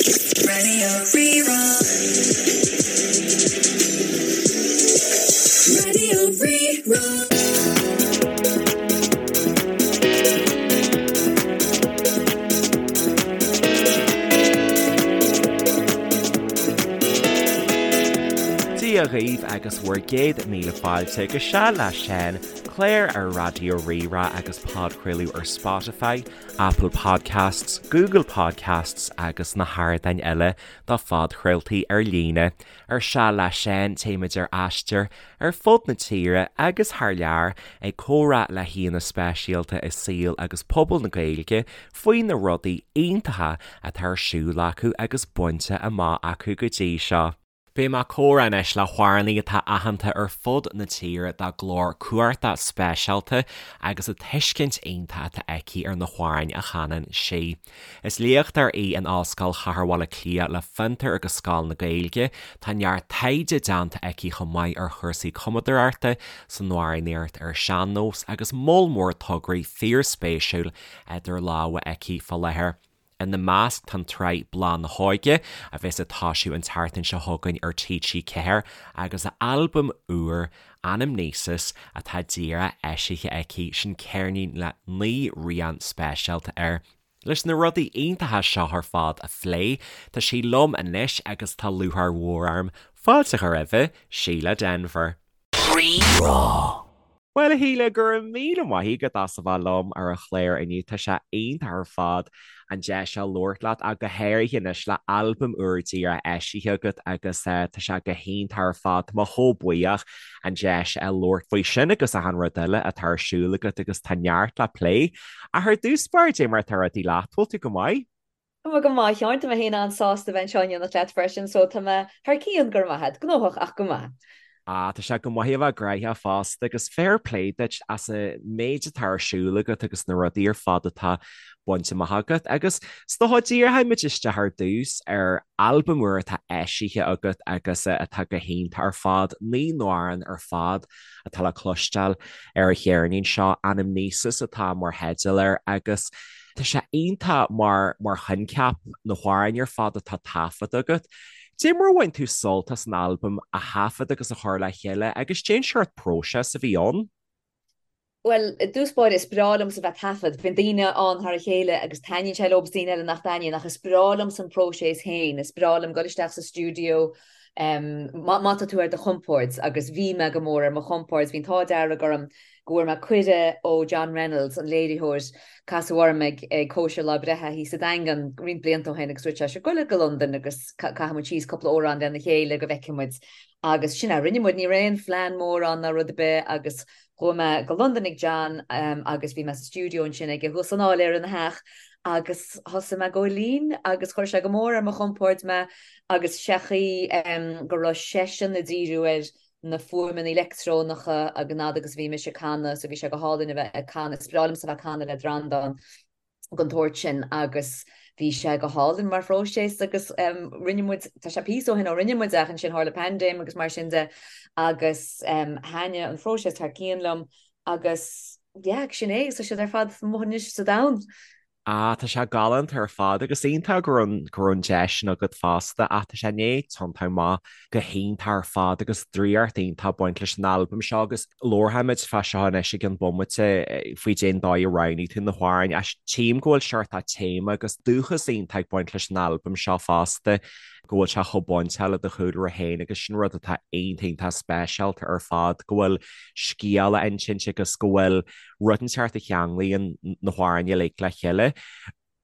Radio Rí-Rá. Radio Rí-Rá. Dia dhaoibh agus bhur gcéad míle fáilte go Seal le Seán, clár ar Raidió Rí-Rá agus podchraoladh ar Spotify, Apple Podcasts, Google Podcasts agus na hardáin eile do phodchraoltaí ar líne. Ar Seal le Seán téimid ar aistear ar fud na tíre agus thar lear ag comhrá le haíonna speisialta i saol agus pobal na Gaeilge faoi na rudaí iontacha atá ar siúl acu agus bainte amach acu go dtí seo. Beidh mé ag comhrá anois le hamhránaí atá aitheanta ar fud na tíre dá glór cumhachtach speisialta agus an tuiscint iontach atá aici ar na hamhráin a chanann sí. Is léachtóir í in Ollscoil Chathair Bhaile Átha Cliath le Fiontar agus Scoil na Gaeilge. Tá neart taighde déanta aici chomh maith ar chúrsaí cumadóireachta san amhránaíocht ar sean-nós agus moll mór tograí fíorspéisiúil idir lámha aici fá láthair. Ina measc tá an tsraith Bláth na hÓige, a bheas ag toisiú an tseachtain seo chugainn ar TG4, agus a albam úr, Anamnesis, atá díreach eisithe aici, sin ceirnín le 9 rian speisialta air. Leis na rudaí iontacha seo ar fad a phlé, tá sí liom anois agus tá lúcháir mhór orm fáilte a chur roimhe, Síle Denvir. Rí-Rá. Bhuel, a Shíle, go raibh míle maith agat as a bheith liom ar an chlár inniu. Tá sé iontach ar fad an deis seo labhairt leat, ach go háirithe anois le albam úr díreach eisithe agat agus tá sé go hiontach ar fad. Tá mé chomh buíoch an deis a labhairt faoi sin agus achan rud eile atá ar siúl agat agus tá neart le plé. Ach ar dtús báire, cad é mar atá rudaí leat, bhfuil tú go maith? Tá mé go maith, a Sheáin. Tá mé féin an-sásta bheith anseo in éineacht leat freisin, so tá mé thar cionn, go raibh maith agat. Gnóthach ach go maith. Ah, tá sé go maith a bheith gnoitheach fosta agus fair play duit as an méid atá ar siúl agat agus na rudaí ar fad atá bainte amach agat. Agus is dócha díreoidh muid isteach ar dtús ar albam úr atá eisithe agat agus atá go hiontach ar fad, 9 n-amhrán ar fad atá le cloisteáil ar an cheirnín seo, Anamnesis atá mar theideal air agus Tá sé iontach mar mar choincheap na hamhráin ar fad atá taifeadta agat. Cad é mar a bhain tú sult as an albam a thaifead agus a chur le chéile agus cén seort próiseas a bhí ann? Bhuel, i dtús báire, is breá liomsa bheith ag taifead. Bíonn daoine ann thar a chéile agus taitníonn sé leo agus daoine eile nach dtaitníonn ach is breá liomsa an próiseas féin. Is breá liom dul isteach sa stiúideo má tá tú ar do chompord agus bhí mé go mór ar mo chompord, bhí an t-ádh dearg orm go bhfuair mé cuireadh ó John Reynolds, an léiritheoir, casadh orm ag cóisir lá breithe thíos sa Daingean roinnt blianta ó shin agus dúirt sé, 'Sure, gabh go Londain agus caithfidh muid síos cúpla amhrán lena chéile go bhfeicfidh muid. Agus sin a rinne muid, ní raibh aon phlean mór ann ná rud ar bith agus chuaigh mé go Londain ag John agus bhí mé sa stiúideo ansin aige thuas san áiléar ina theach agus thosaigh mé ag gabháil fhoinn agus chuir sé go mór ar mo chompord mé agus sé chaoi go raibh seisean ag díriú ar na fuaimeanna leictreonacha ag an fhad agus a bhí mise ag canadh so bhí sé go hálainn a bheith ag canadh, is breá liomsa a bheith ag canadh le Breandán den tsórt sin agus bhí sé go hálainn mar phróiseas agus rinne muid, tá sé píosa ó shin ó rinne muid ach ansin tharla paindéim agus mar sin de agus thaitnigh an phróiseas thar cionn liom agus yeah sin é, tá siad ar fad amuigh anois sa domhan. Ah, tá sé galánta ar fad agus iontach go raibh go raibh an deis sin agat fosta ach tá sé i ndiaidh tiontú amach go hiontach ar fad agus draíocht iontach ag baint leis an albam seo agus labharfaimid fá seo anois i gceann bomaite faoi cén dóigh a roghnaigh tú na hamhráin ach tchím go bhfuil seort téama agus dúchas iontach ag baint leis an albam seo fosta go bhfuil sé chomh bainteach le do chúlra féin agus sin rud atá iontach iontach speisialta ar fad go bhfuil scéal á insint agus go bhfuil rud inteacht a cheanglaíonn na hamhráin uilig le chéile.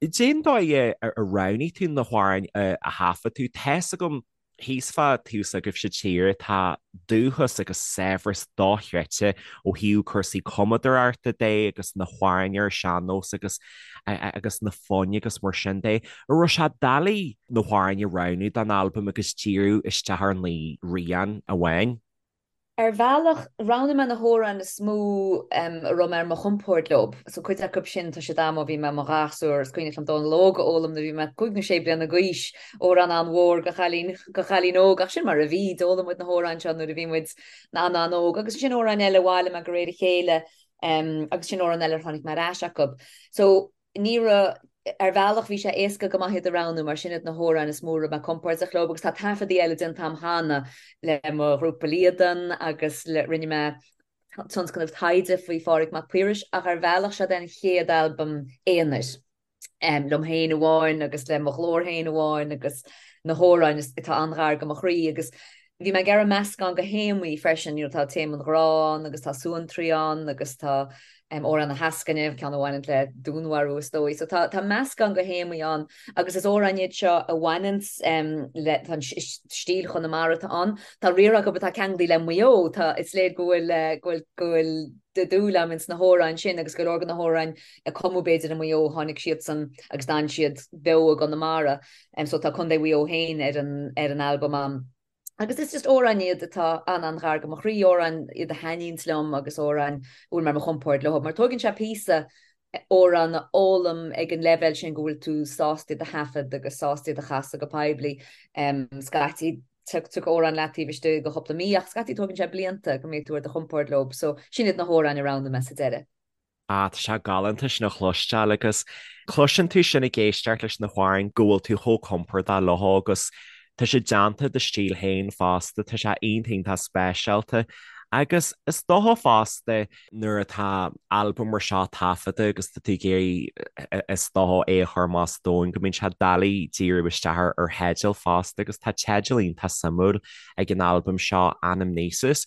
Cén dóigh a roghnaigh tú na hamhráin a thaifead tú? Tá's agam thíos fá taobh s'agaibhse tíre tá dúchas agus saibhreas dochreidte ó thaobh cúrsaí cumadóireachta de agus na hamhráin ar sean-nós agus agus na foinn agus mar sin de. An raibh sé doiligh na hamhráin a roghnú don albam agus díriú isteach ar 9 rian amháin? Ar bhealach, roghnaigh mé na hamhráin is mó a raibh mé ar mo chompord leo. So cuid acu sin, tá siad a'm ó bhí mé i mo ghasúr. Is cuimhneach liom Dónal Óg a fhoghlaim nuair a bhí mé cúig nó sé bliana d'aois, amhrán an-mhór do chailín, do chailín óg, ach sin mar a bhí, d'fhoghlaim muid na hamhráin seo nuair a bhí muid an-an-óg. Agus ansin amhráin eile a bhailigh mé de réir a chéile, agus sin amhráin eile ar tháinig mé ar ais acu. So ní raibh. Ar bhealach bhí sé éasca go maith iad a roghnú mar sin iad na hamhráin is mó a raibh mé compordach leo agus tá taifeadaí eile déanta agam cheana le mo ghrúpa Líadan agus le rinne mé tionscnamh taighde faoi Phádraig Mac Piarais ach ar bhealach seo é an chéad albam aonair liom féin amháin agus le mo ghlór féin amháin agus na hamhráin atá an-ghar do mo chroí agus Bhí mé ag iarraidh meascán de théamaí freisin, you know, tá téama an ghrá ann agus tá suantraí ann agus tá amhrán na heascaine, ceann a bhaineann le dúnmharú is dóigh. So tá, tá meascán de théamaí ann agus is amhráin iad seo a bhaineann le, tá an stíl Chonamara atá ann. Tá riar acu atá ceangailte le Maigh Eo, tá, is léir go bhfuil, go bhfuil, go bhfuil dúil agam ins na hamhráin sin agus go leor de na hamhráin a cumadh b'fhéidir i Maigh Eo, tháinig siadsan agus d'fhan siad beo i gConamara. So tá Contae Mhaigh Eo féin ar an ar an albam a'm. Agus is just amhráin iad atá an-an-ghar do mo chroí, amhráin iad a thaitníonns liom agus amhráin a bhfuil mé ar mo chompord leo. Mar tóigeann sé píosa amhrán a fhoghlaim ag an leibhéal sin go bhfuil tú sásta iad a thaifead agus sásta iad a chasadh go poiblí. Scaití tiocfaidh amhrán leat taobh istigh de chúpla mí ach scaití tógann sé blianta go mbeidh tú ar do chompord leo. So sin iad na hamhráin a roghnaigh mé sa deireadh. Ah, tá sé galánta sin a chloisteáil agus cloiseann tú sin ag éisteacht leis na hamhráin go bhfuil tú chomh compordach leo agus tá sé déanta i do stíl féin fosta, tá sé iontach iontach speisialta. Agus is dócha fosta nuair atá albam mar seo taifeadta agus tá tú ag iarraidh is dócha é a chur amach sa domhan go mbíonn sé doiligh díriú isteach ar theideal fosta agus tá teideal iontach suimiúil ag an albam seo, Anamnesis.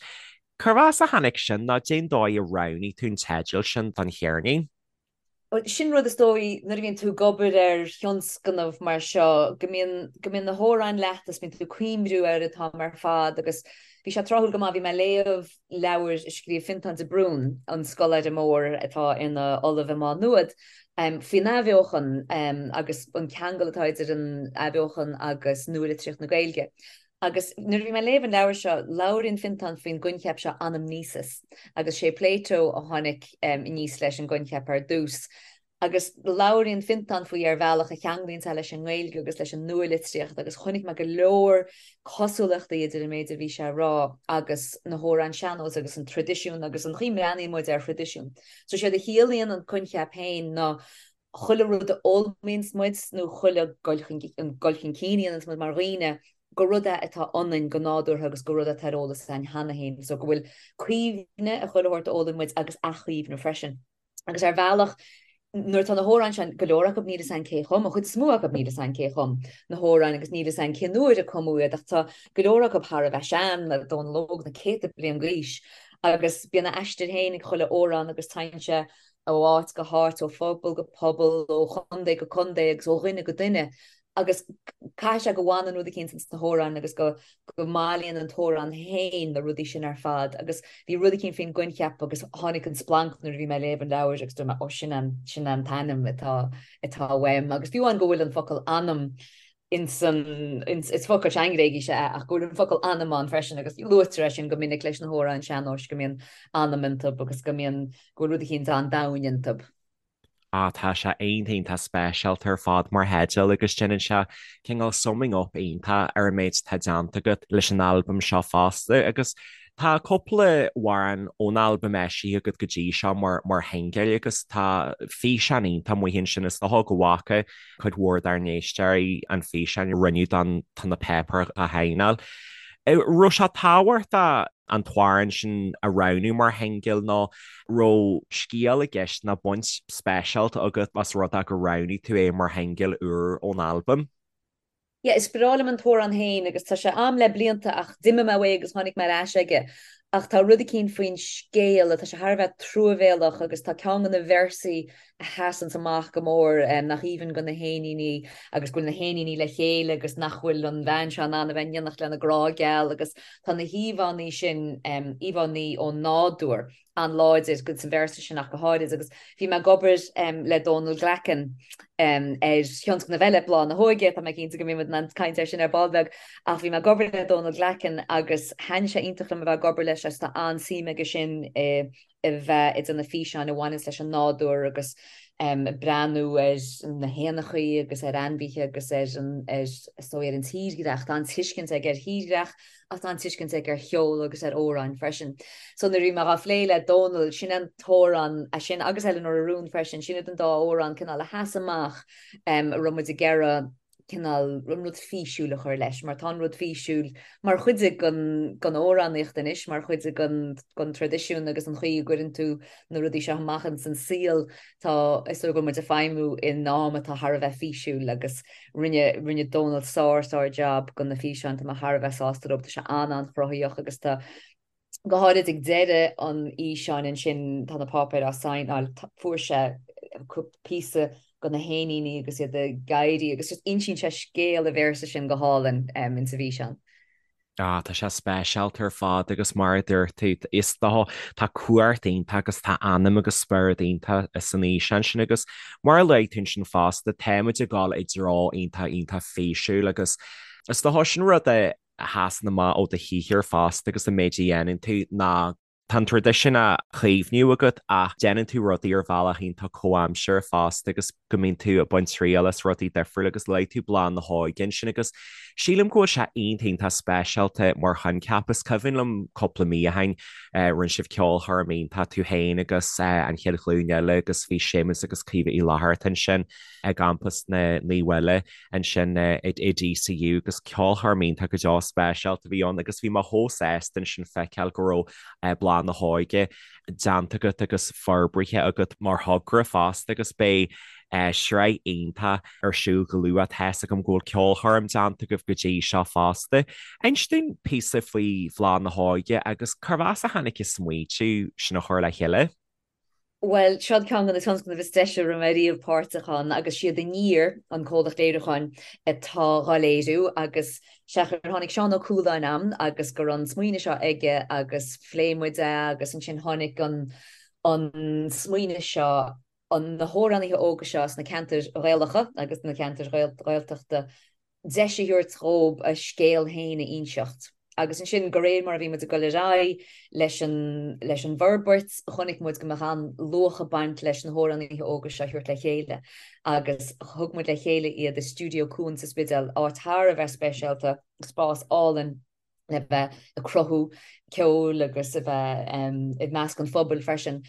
Cérbh as a tháinig sin nó cén dóigh a roghnaigh tú an teideal sin don cheirnín? Bhuel, sin rud is dóigh nuair a bhíonn tú ag obair ar thionscnamh mar seo, go mbíonn, go mbíonn na hamhráin leat agus bíonn tú ag cuimhniú ar an t-am ar fad agus bhí sé tráthúil go maith, bhí mé ag léamh leabhair a scríobh Fionntán de Brún, an scoláire mór atá ina ollamh i Má Nuad, faoin athbheochan agus an ceangal atá idir an athbheochan agus nualitríocht na Gaeilge. Agus nuair a bhí mé ag léamh an leabhair seo, labhraíonn Fionntán faoin gcoincheap seo anamnesis, agus sé Plato a tháinig aníos leis an gcoincheap ar dtús. Agus labhraíonn Fionntán faoi ar bhealach a cheanglaíonn sé leis an nGaeilge agus leis an nua-litríocht agus chonaic mé go leor cosúlachtaí idir an méid a bhí sé a rá agus na hamhráin sean-nóis agus an traidisiún agus an chaoi a mbreathnaíonn muid ar thraidisiún. So séard a chiallaíonn an coincheap féin ná chuile rud a fhoghlaimíonns muid nó chuile gul chun gul chun cinn a dhéananns muid mar dhaoine, gur rud é atá ionainn go nádúrtha agus gur rud é atá ar eolas againn cheana féin. So go bhfuil cuimhne ar chuile shórt a fhoghlaim muid agus athchuimhne freisin. Agus ar bhealach, nuair atá na hamhráin sin, go leor acu níl fhios againn cé a chum, an chuid is mó acu níl fhios againn cé a chum na hamhráin agus níl fhios againn cén uair a cumadh iad ach tá go leor acu thar a bheith sean, le Dónal Óg na céadta bliain d'aois agus bíonn a aistear féin ag chuile amhrán agus téann sé ó áit go háit, ó phobal go pobal, ó chontae go contae agus ó dhuine go duine agus caithfidh sé go bhfanann rud eicínt ins na hamhráin agus go go mbailíonn an t-amhrán féin na rudaí sin ar fad agus bhí rud eicínt faoin gcoincheap agus tháinig an splanc nuair a bhí mé ag léamh an leabhair agus dúirt mé ó sin an sin an t-ainm atá atá uaim agus fiú amháin go bhfuil an focal anam ins an, ins, is focal sean-Ghréigise é ach go bhfuil an focal anam ann freisin agus luaitear é sin go minic leis na hamhráin sean-nóis go mbíonn anam iontu agus go mbíonn, go bhfuil rud eicínt an-domhain iontu. Ah tá sé iontach iontach speisialta ar fad mar theideal agus déanann sé cineál summing up iontach ar an méid atá déanta agat leis an albam seo fosta agus Tá cúpla amhrán ón albam eisithe agat go dtí seo mar mar shingil agus tá físeán iontach amuigh ansin is dócha go bhfaca cuid mhór dár n-éisteoirí an físeán a rinneadh don Tá na Páipéir á Shaighneáil. Raibh sé tábhachtach an t-amhrán sin a roghnú mar shingil nó raibh scéal i gceist nó baint speisialta agat as rud é gur roghnaigh tú é mar shingil úr ón albam? Yeah, is breá liom an t-amhrán féin agus tá sé a'm le blianta ach d'imigh mé uaidh agus tháinig mé ar ais aige. Ach tá rud eicínt faoin scéal, tá sé thar a bheith truamhéalach agus tá ceann de na véarsaí a sheasanns amach go mór, nach aoibhinn go na héiníní agus go bhfuil na héiníní le chéile agus nach bhfuil an bhean seo in ann a bheith in éineacht lena grá geal agus tá na híomhánna sin, íomhánna ón nádúr. an-láidir sa véarsa sin ach go háirid agus bhí mé ag obair le Dónal Glackin ar thionscnamh eile, Bláth na hÓige, tá mé cinnte go mbeidh muid in ann caint air sin ar ball beag, ach bhí mé ag obair le Dónal Glackin agus thaitnigh sé iontach liom a bheith ag obair leis agus tá an-suim aige sin i bheith ag déanamh físeáin a bhaineanns leis an nádúr agus. Ag breathnú ar na héanachaí agus ar ainmhithe agus ar an, ar, is dóigh, ar an tírdhreach. Tá an-tuiscint aige ar thírdhreach ach tá an-tuiscint aige ar cheol agus ar amhráin freisin. So nuair a bhí mé dhá phlé le Dónal, sin an t-amhrán, é sin agus Eleanor a Rún freisin, sin iad an dá amhrán cineál a sheas amach a raibh muid ag iarraidh cineál an rud físiúil a chur leis, mar tá an rud físiúil mar chuid den amhránaíocht anois, mar chuid den traidisiún agus an chaoi a gcuireann tú na rudaí seo amach ins an saol. Tá, is dóigh go bhfuil muid ag feidhmiú in am atá thar a bheith físiúil agus rinne, rinne Dónal sár, sár job de na físeáin, tá mé thar a bheith sásta leo, tá sé an-an-chruthaíoch agus tá, go háirid ag deireadh an fhíseáin ansin tá na páipéir á saighneáil, fuair sé píosa de na héiníní agus iad ag éirí agus just insíonn sé scéal an véarsa sin go hálainn insa bhfíseán. Ah, tá sé speisialta ar fad agus mar a dúirt tú, is dócha, tá cumhacht iontach agus tá anam agus spiorad iontach san fhíseán sin agus mar a luaigh tú ansin fosta, táimid ag dul i dtreo iontach iontach físiúil agus is dócha sin rud a a sheasann amach ó do shaothar fosta agus an méid a dhéanann tú ná tá an traidisiún á chaomhnú agat ach déanann tú rudaí ar bhealach iontach comhaimseartha fosta agus go mbíonn tú ag baint triail as rudaí difriúla agus luaigh tú Bláth na hÓige ansin agus sílim go bhfuil sé iontach iontach speisialta mar choincheap. Is cuimhin liom cúpla mí ó shin rinne sibh ceolchoirm iontach tú féin agus an Chéad Ghlúin Eile agus bhí Séamus agus Caoimhe Uí Fhlatharta ansin i gcampas na Naomh Uile ansin i DCU agus ceolchoirm iontach go deo speisialta a bhí ann agus bhí mé chomh sásta ansin feiceáil go raibh Bláth na hÓige déanta agat agus forbraithe agat mar thogra fosta agus beidh sraith iontach ar siúl go luath. Tá's agam go bhfuil ceolchoirm déanta agaibh go dtí seo fosta. Inis dúinn píosa faoi Bhláth na hÓige agus cérbh as a tháinig an smaoitiú sin a chur le chéile? Bhuel, seo ceann de na tionscnaimh is deise a raibh mé riamh páirteach ann agus siad Aniar, an comhlacht léiriúcháin, atá dhá léiriú agus sea gur tháinig Seán Ó Cualáin a'm agus go raibh an smaoineamh seo aige agus phléigh muid é agus ansin tháinig an an smaoineamh seo an na hamhránaithe óga seo sna ceantair Ghaelacha agus na ceantair Ghaeltachta deis a thabhairt dhóib a scéal féin a inseacht. Agus ansin, de réir mar a bhí muid ag dul ar aghaidh leis an leis an bhforbairt, chonaic muid go mbeadh an-luach ag baint leis na hamhránaithe óga seo a thabhairt le chéile. Agus thug muid le chéile iad i Stiúideo Cuan sa Spidéal, áit thar a bheith speisialta, spás álainn, le bheith ag cruthú ceoil agus a bheith i measc an phobail freisin.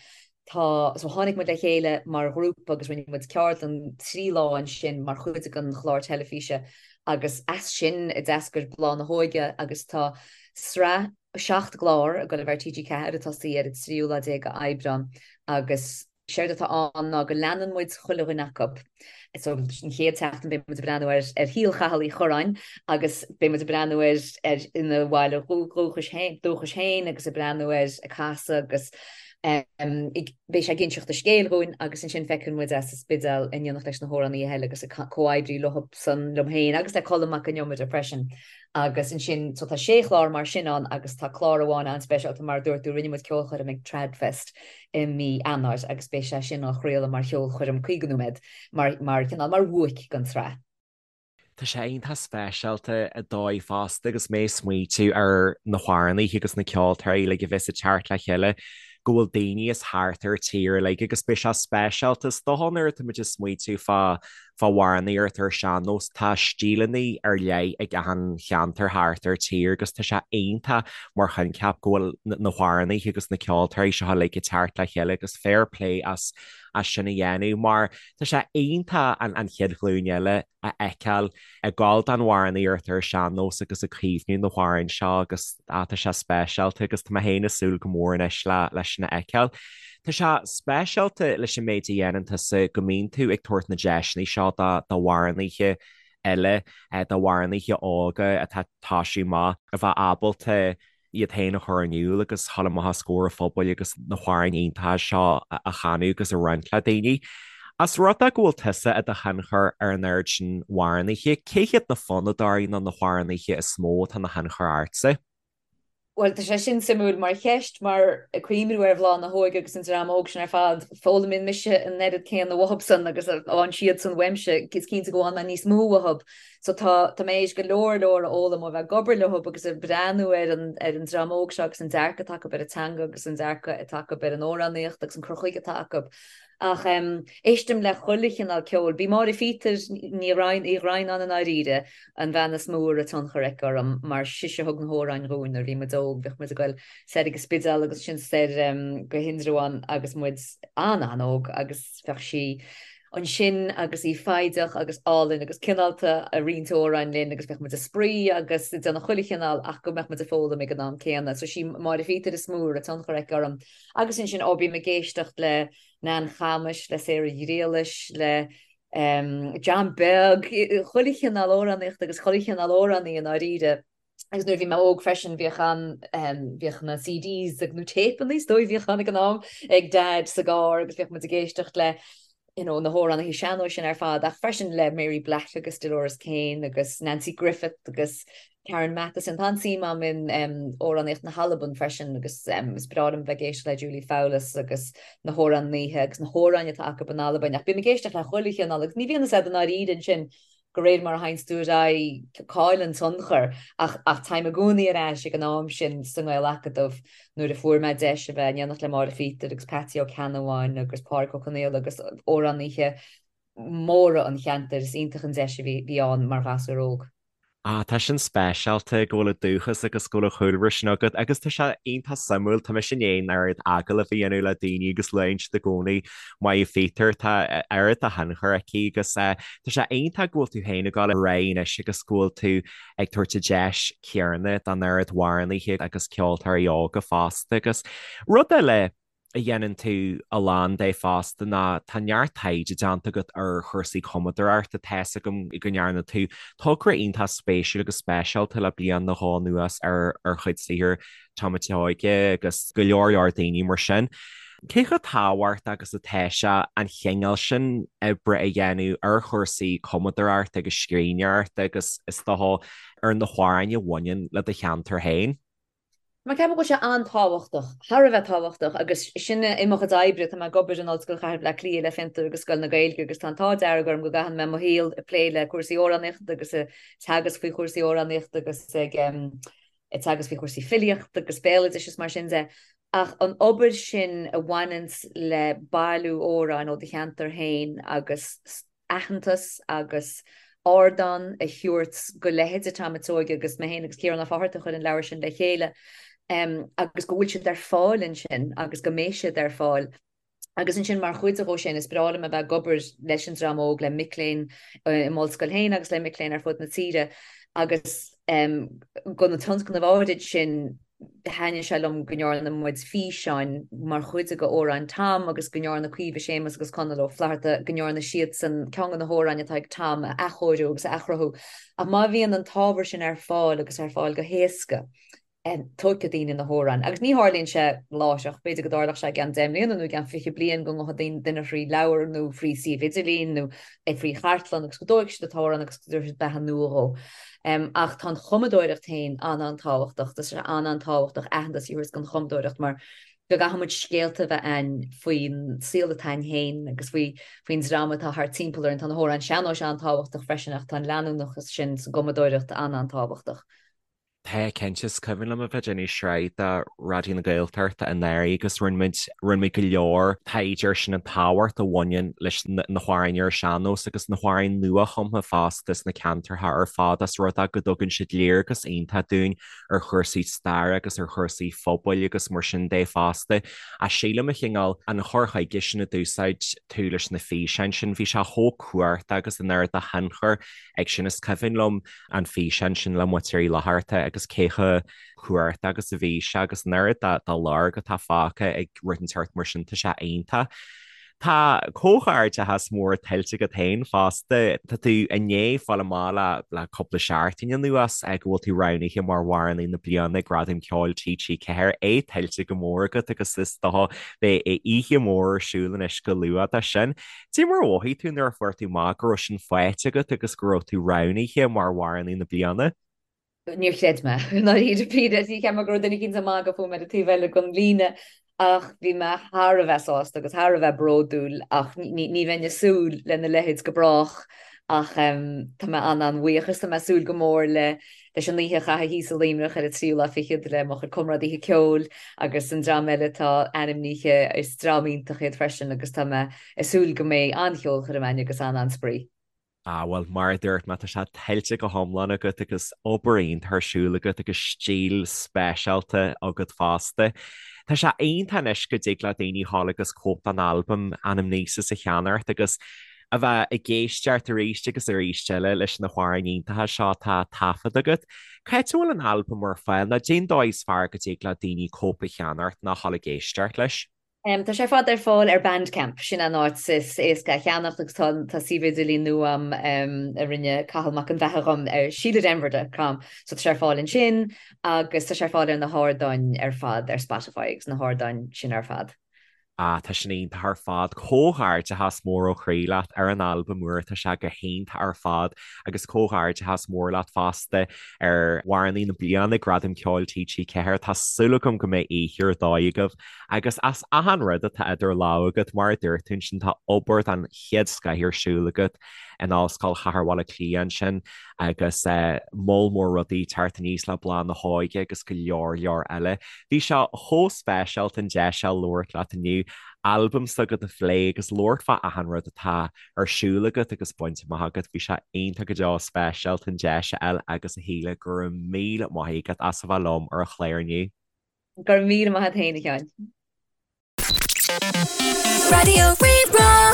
Tá, so tháinig muid le chéile mar ghrúpa agus rinne muid ceardlann 3 lá ansin mar chuid den chlár teilifíse agus as sin a d'eascair Bláth na hÓige agus tá sraith 7 gclár ag dul a bheith ar TG4 ag tosaí ar an tríú lá déag d'Aibreán agus Séard atá ann ná go leanann muid chuile dhuine acu. So an chéad tseachtain beidh muid ag breathnú ar ar shaol Chathail Uí Churráin agus beidh muid ag breathnú air ar ina bhaile dúchais féin dúchais féin agus ag breathnú air ag casadh agus ag beidh sé ag inseacht a scéil dhúinn agus ansin feiceann muid é sa Spidéal in éineacht leis na hamhránaithe eile agus ag comhoibriú leo san liom féin agus le Colm Mac Con Iomaire freisin. Agus ansin, so tá sé chlár mar sin ann agus tá clár amháin an-speisialta mar a dúirt tú, rinne muid ceolchoirm ag Tradfest i mí Eanáir agus beidh sé sin á chraoladh mar cheolchoirm 50 nóiméad mar, mar chineál, mar bhuaic den tsraith. Tá sé iontach speisialta ar dóigh fosta agus mé ag smaoitiú ar na hamhránaithe agus na ceoltóirí uilig a bheas ag teacht le chéile go bhfuil daoine as thart ar an tír uilig agus beidh sé speisialta is dócha nuair atá muid ag smaoitiú fá fá amhránaíocht ar an sean-nós, tá stíleanna ar leith ag achan cheantar thart ar tír agus tá sé iontach mar choincheap go bhfuil na hamhránaithe agus na ceoltóirí seo uilig ag teacht le chéile agus fair play as as sin a dhéanamh mar tá sé iontach an an chéad ghlúin eile a fheiceáil ag gabháil don amhránaíocht ar an sean-nós agus ag caomhnú na hamhráin seo agus ah tá sé speisialta agus tá mé féin ag súil go mór anois le leis sin a fheiceáil. Tá sé speisialta leis an méid a dhéanann tusa go mbíonn tú ag tabhairt na deiseanna seo d'amhránaithe eile, d'amhránaithe óga atá ag toisiú amach, a bheith ábalta iad féin a chur in iúl agus dhul amach os comhair an phobail agus na hamhráin iontacha seo a chanadh agus a roinnt le daoine. As rud é go bhfuil tusa i do thionchar ar an oiread sin amhránaithe, cé hiad na fonnadóirí nó na hamhránaithe is mó atá ina thionchar ortsa? Bhuel, tá sé sin suimiúil mar cheist, mar ag cuimhniú ar Bhláth na hÓige agus an dream óg sin ar fad, foghlaimíonn mise an oiread céanna uathubsan agus a fhaigheann siadsan uaimse, is cinnte go bhfaigheann mé níos mó uathub. So tá, tá mé théis go leor leor a fhoghlaim ó bheith ag obair leo agus ag breathnú ar an, ar an dream óg seo agus an dearcadh atá acu ar an teanga agus an dearcadh atá acu ar an amhránaíocht agus an cur chuige atá acu. Ach éistim le chuile chineál ceoil. B'í Máire Phíotair Ní Ghraidhin, Uí Dhroighneáin i ndáiríre, an bhean is mó a raibh tionchar aici orm mar sise a thug na hamhráin dhúinn nuair a bhí muid óg. Bhíodh muid ag goil soir ag an Spidéal agus ansin soir go hIndreabhán agus muid an-an-óg agus bheadh sí ansin agus í foighdeach agus álainn agus cineálta ag roinnt amhráin linn agus bheadh muid ag spraoi agus ag déanamh chuile chineál ach go mbeadh muid ag foghlaim ag an am céanna. So sí Máire Phíotair is mó a raibh tionchar aici orm. Agus ansin, ó, bím ag éisteacht le Nan Chamuis, le Sarah Ghriallais, le John Beag, chuile chineál amhránaíochta agus chuile chineál amhránaí i ndáiríre. Agus nuair a bhí mé óg freisin, bhíodh an, bhíodh na CDs ag, nó téipeanna is dóigh a bhíodh ann ag an am, ag Dad sa gcarr agus bhíodh muid ag éisteacht le you know, na hamhránaithe sean-nóis sin ar fad, ach freisin le Mary Black agus Dolores Keane agus Nanci Griffith agus Karen Matheson. Tá an-suim agam in amhránaíocht na hAlban freisin agus is breá liom bheith ag éisteacht le Julie Fowlis agus na hamhránaithe agus na hamhráin atá acu in Albain. Ach bím ag éisteacht le chuile chineál agus ní bhíonn a fhios agat i ndáiríre ansin de réir mar a théanns tú ar aghaidh cá bhfuil an tionchar ach ach táim i gcónaí ar ais ag an am sin sa nGael-Acadamh nuair a fuair mé deis a bheith in éineacht le Máire Phíotair agus Patsy Ó Ceannabháin agus Pádraig Ó Conaola agus amhránaithe móra an cheantair. Is iontach an deis a bhí ann mar ghasúr óg. Ah, tá sin speisialta go bhfuil an dúchas agus go bhfuil an chúlra sin agat agus tá sé iontach suimiúil, tá mise i ndiaidh an oiread agallamh a dhéanamh le daoine agus luann siad i gcónaí Máire Phíotair, tá oiread de thionchar aici agus tá sé iontach go bhfuil tú féin ag dul ar aghaidh anois agus go bhfuil tú ag tabhairt an deis chéanna don oiread amhránaithe agus ceoltóirí óga fosta agus rud eile a dhéanann tú a lán de fosta ná tá neart taighde déanta agat ar chúrsaí cumadóireachta. Tá's agam go ndearna tú togra iontach spéisiúil agus speisialta le bliain nó dhó anuas ar ar chuid saothair Tom a' tSeoige agus go leor leor daoine mar sin. Cé chomh tábhachtach agus atá sé an chineál sin oibre a dhéanamh ar chúrsaí cumadóireachta agus scríbhneoireachta agus is dócha ar na hamhráin a bhaineann le do cheantar féin? Mar ceapaim go bhfuil sé an-tábhachtach, thar a bheith tábhachtach agus sin i mo chuid oibre, tá mé ag obair in Ollscoil Chathair Bhaile Átha Cliath le Fiontar agus Scoil na Gaeilge agus tá an t-ádh dearg orm go gcaitheann mé mo shaol ag plé le cúrsaí amhránaíochta agus ag teagasc faoi chúrsaí amhránaíochta agus ag teagasc faoi chúrsaí filíochta agus béaloidis is mar sin de. Ach an obair sin a bhaineanns le bailiú amhráin ó do cheantar féin agus aitheantas agus ardán a thabhairt go leithéide Tom a' tSeoige agus mé féin agus Ciarán Ó Fátharta a chuir an leabhar sin le chéile agus go bhfuil siad ar fáil ansin agus go mbeidh siad ar fáil. Agus ansin mar chuid de sin is breá liom a bheith ag obair leis an dream óg, le mic léinn i m'ollscoil féin agus le mic léinn ar fud na tíre agus go na tionscnaimh áirid sin Thaitnigh sé liom go ndearna muid físeáin mar chuid de amhráin Tom agus go ndearna Caoimhe Séamus agus Conall Ó Flatharta, go ndearna siadsan ceann de na hamhráin atá ag Tom a athchóiriú agus a athchruthú. Ach má bhíonn an t-ábhar sin ar fáil agus ar fáil go héasca, tógfaidh daoine na hamhráin. Agus ní tharlaíonn sé láithreach, b'fhéidir go dtarlódh sé i gceann 10 mbliana nó i gceann 20 bliain go ngabhfaidh duine thrí leabhar nó thrí suíomh idirlín nó thrí chartlann agus go dtógfaidh siad an t-amhrán agus go dtabharfaidh siad beatha nua dhó. Ach tá an chumadóireacht féin an-an-tábhachtach, tá sé an-an-tábhachtach aitheantas a thabhairt don chumadóireacht mar go gcaithfidh muid scéalta a bheith a'ainn faoin saol atá a'ainn féin agus faoi faoin dream atá thart timpeall orainn. Tá na hamhráin sean-nóis an-tábhachtach freisin ach tá an leanúnachas sin sa gcumadóireacht an-an-tábhachtach. Tá, cinnte. Is cuimhin liom a bheith ag déanamh sraith do Raidió na Gaeltachta anuraidh agus rinne muid, rinne muid go leor taighde ar sin, an tábhacht a bhaineann leis na hamhráin ar an sean-nós agus na hamhráin nua-chumtha fosta sna ceantarcha ar fad as rud é go dtugann siad léargas iontach dúinn ar chúrsaí staire agus ar chúrsaí phobail agus mar sin de fosta. Ach sílim a chineál an chur chuige sin a d'úsáid tú leis na físeáin sin, bhí sé chomh cumhachtach agus an oiread de thionchar ag sin. Is cuimhin liom an físeán sin le Muintir Uí Fhlatharta agus cé chomh cumhachtach agus a bhí sé agus an oiread de lorg atá fágtha ag rud inteacht mar sin, tá sé iontach. Tá comhghairdeachas mór tuillte agat féin fosta. Tá tú i ndiaidh fáil amach le le cúpla seachtain anuas go bhfuil tú roghnaithe mar Amhránaí na Bliana ag Gradaim Ceoil TG4. É tuillte go mór agat agus is dócha beidh oíche mhór ar siúl anois go luath dó sin. Cad é mar a mhothaigh tú nuair a fuair tú amach go raibh sin faighte agat agus go raibh tú roghnaithe mar Amhránaí na Bliana? Níor chreid mé, i ndáiríre píre. Cheap mé go raibh duine eicínt ag magadh fúm ar an taobh eile den líne ach bhí mé thar a bheith sásta agus thar a bheith bródúil ach ní bheinn ag súil lena leithéid go brách. Ach tá mé an-an-bhuíoch is tá mé ag súil go mór le leis an oíche a chaitheamh thíos i Luimneach ar an tríú lá fichead le mo chuid comrádaithe ceoil agus an dream eile atá ainmnithe, is dream iontach iad freisin agus tá mé ag súil go mbeidh an-cheolchoirm againn agus an-an-spraoi. Ah, bhuel, mar a dúirt mé, tá sé tuillte go hiomlán agat agus obair iontach ar siúl agat agus stíl speisialta agat fosta. Tá sé iontach anois go dtig le daoine a ghabháil agus cóip den albam Anamnesis a cheannacht agus a bheith ag éisteacht arís agus arís eile leis na hamhráin iontacha seo atá taifeadta agat. Cá háit a bhfuil an albam ar fáil nó cén dóigh is fearr go dtig le daoine cóip a cheannacht nó a ghabháil ag éisteacht leis? Tá sé ar fad ar fáil ar Bandcamp, sin an áit is éasca a cheannacht agus tá tá suíomh idirlín nua agam a rinne Cathal Mac an Bheatha dhom ar SíleDenver dot com so tá sé ar fáil ansin agus tá sé ar fáil ar na hardáin ar fad ar Spotify agus na hardáin sin ar fad. Ah, tá sin iontach ar fad. Comhghairdeachas mór ó chroí leat ar an albam úr, tá sé go hiontach ar fad agus comhghairdeachas mór leat fosta ar Amhránaí na Bliana, Gradam Ceoil TG4. Tá súil agam go mbeidh oíche ar dóigh agaibh Agus as achan rud atá idir lámha agat, mar a dúirt tú ansin, tá obair den chéad scoith ar siúl agat in Ollscoil Chathair Bhaile Átha Cliath ansin agus moll mór rudaí ag teacht aníos le Bláth na hÓige agus go leor leor eile. Bhí sé chomh speisialta an deis seo labhairt leat inniu, albam s'agat a phlé agus labhairt fá achan rud atá ar siúl agat agus bainte amach agat. Bhí sé iontach go deo speisialta an deis a fháil agus a Shíle, go raibh míle maith agat as a bheith liom ar an chlár inniu. Go raibh míle maith agat féin, a Sheáin. Raidió Rí-Rá.